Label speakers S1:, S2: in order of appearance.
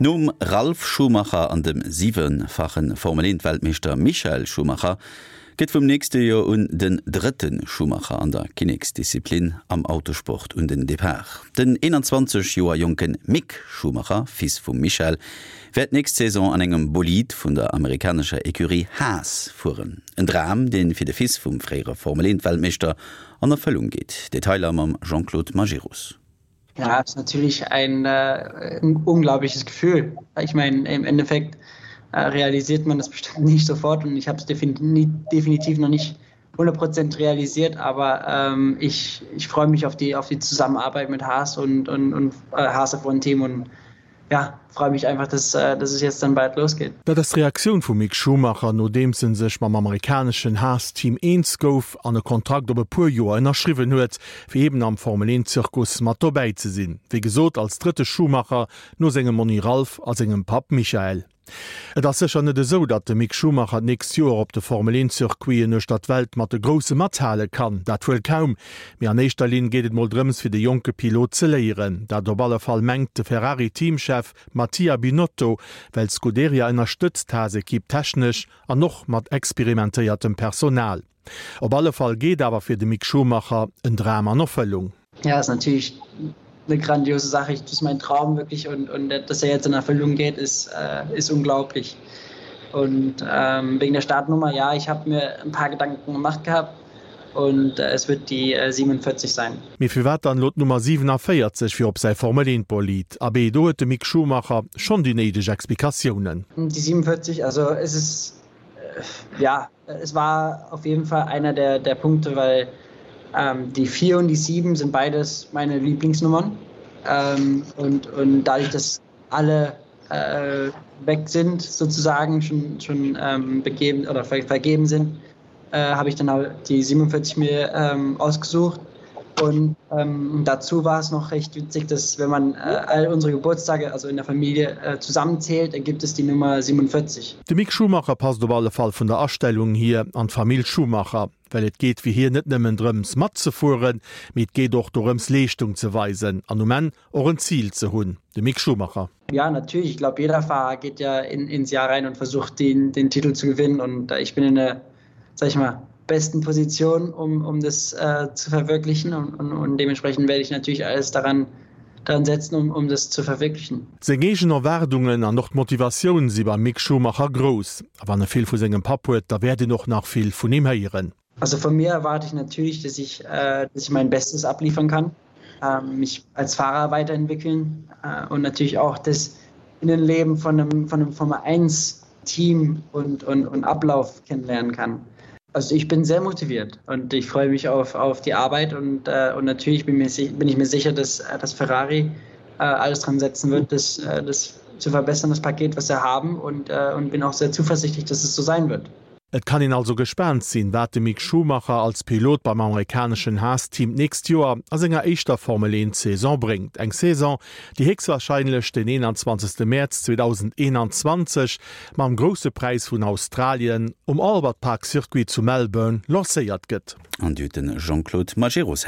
S1: Nom Ralf Schumacher an dem siwefache Formel-Eent-Weltmeeschter Michael Schumacher gëtt vum nächste Joer un den drëtte Schumacher an der Kinneksdisziplin am Autosport un den Depart. Den 21 Joer jonke Mick Schumacher, Fils vum Michael, wäert nächst Saison an engem Bolid vun der amerikanescher Ecurie Haas fueren. En Dram, dee fir de Fils vum fréiere Formel-Eent-Weltmeeschter an Erfëllung geet. Detailer mam Jean-Claude Majerus.
S2: Ja, ist natürlich ein äh, unglaubliches Gefühl. Ich meine, im Endeffekt äh, realisiert man das bestimmt nicht sofort und ich habe es definitiv, definitiv noch nicht 100 Prozent realisiert, aber ähm, ich, ich freue mich auf die, auf die Zusammenarbeit mit Haas und, und, und äh, Haas von Team und ja, freue mich einfach, dass, äh, dass es jetzt dann bald losgeht.
S3: Dat ass d'Reaktioun vum Mick Schumacher, nodeems en sech mam amerikaneschen Haas-Team eens gouf an e Kontrakt op e puer Joer ënnerschriwwen huet, fir eben am Formel-Eent-Zirkus mat dobäi ze sinn. Wéi gesot als drëtte Schumacher no sengem Monni Ralf a sengem Papp Michael. Et ass sécher net esou, datt de Mick Schumacher d'nächst Joer op de Formel-Eent-Circuiten uechter d'Welt mat de Grousse mathale kann. Dat wuel kaum. Mee an éischter Linn geet et mol drëms fir de jonke Pilot ze léieren. Dat op alle Fall mengt de Ferrari-Teamchef Mattia Binotto, well d'Scuderia ënnerstëtzt d'Haas-Ekipp technesch an och mat experimentéiertem Personal. Op alle Fall geet awer fir de Mick Schumacher en Dram an Erfëllung.
S2: Ja, ist natürlich eine grandiose Sache. Das ist mein Traum wirklich und, und dass er jetzt in Erfüllung geht, ist, äh, ist unglaublich. Und ähm, wegen der Startnummer, ja, ich habe mir ein paar Gedanken gemacht gehabt und äh, es wird die äh, 47 sein.
S3: Mee firwat dann elo d'Nummer 47 fir op säi Formel 1 Bolid? Abee, do huet de Mick Schumacher schonn déi néideg Explikatiounen.
S2: Die 47, also es ist äh, ja, es war auf jeden Fall einer der, der Punkte, weil ähm, die 4 und die 7 sind beides meine Lieblingsnummern. Ähm, und, und dadurch, dass alle äh, weg sind, sozusagen schon, schon ähm, begeben oder ver vergeben sind, äh, habe ich dann halt die 47 mir ähm, ausgesucht. Und ähm, dazu war es noch recht witzig, dass wenn man äh, all unsere Geburtstage also in der Familie äh, zusammenzählt, ergibt es die Nummer 47.
S3: De Mick Schumacher passt op alle Fall vun der Astellung hier an d'Famill Schumacher, well et geet fir hien net nëmmen drëms matzefueren, mee et geet och dorëms Leeschtung ze weisen an um Enn och en Zil ze hunn. De Mick Schumacher.
S2: Ja natürlich, ich glaube jeder Fahrer geht ja in, ins Jahr rein und versucht den, den Titel zu gewinnen und äh, ich bin in der sag ich mal, besten Position, um, um das äh, zu verwirklichen und, und, und dementsprechend werde ich natürlich alles daran, daran setzen, um, um das zu verwirklichen.
S3: Seng eegen Erwaardungen an och d'Motivatioun si beim Mick Schumacher grouss. A wann e vill vu sengem Papp huet, da wäert een och nach vill vun him héieren.
S2: Also von mir erwarte ich natürlich, dass ich, äh, dass ich mein Bestes abliefern kann, äh, mich als Fahrer weiterentwickeln äh, und natürlich auch das Innenleben von einem, von einem Formel 1 Team und, und, und Ablauf kennenlernen kann. Also ich bin sehr motiviert und ich freue mich auf, auf die Arbeit und, äh, und natürlich bin, mir, bin ich mir sicher, dass, äh, dass Ferrari äh, alles dran setzen wird, das, äh, das zu verbessern, das Paket, was sie haben und, äh, und bin auch sehr zuversichtlich, dass es so sein wird.
S3: Et kann een also gespaant sinn, wat de Mick Schumacher als Pilot beim amerikaneschen Haas-Team d'nächst Joer a senger éischter Formel 1 Saison bréngt. Eng Saison, déi héchstwarscheinlech den 21. Mäerz 2021 mam Grousse Präis vun Australien um Albert Park Circuit zu Melbourne lancéiert gëtt.
S1: An déi huet de Jean-Claude Majerus héieren.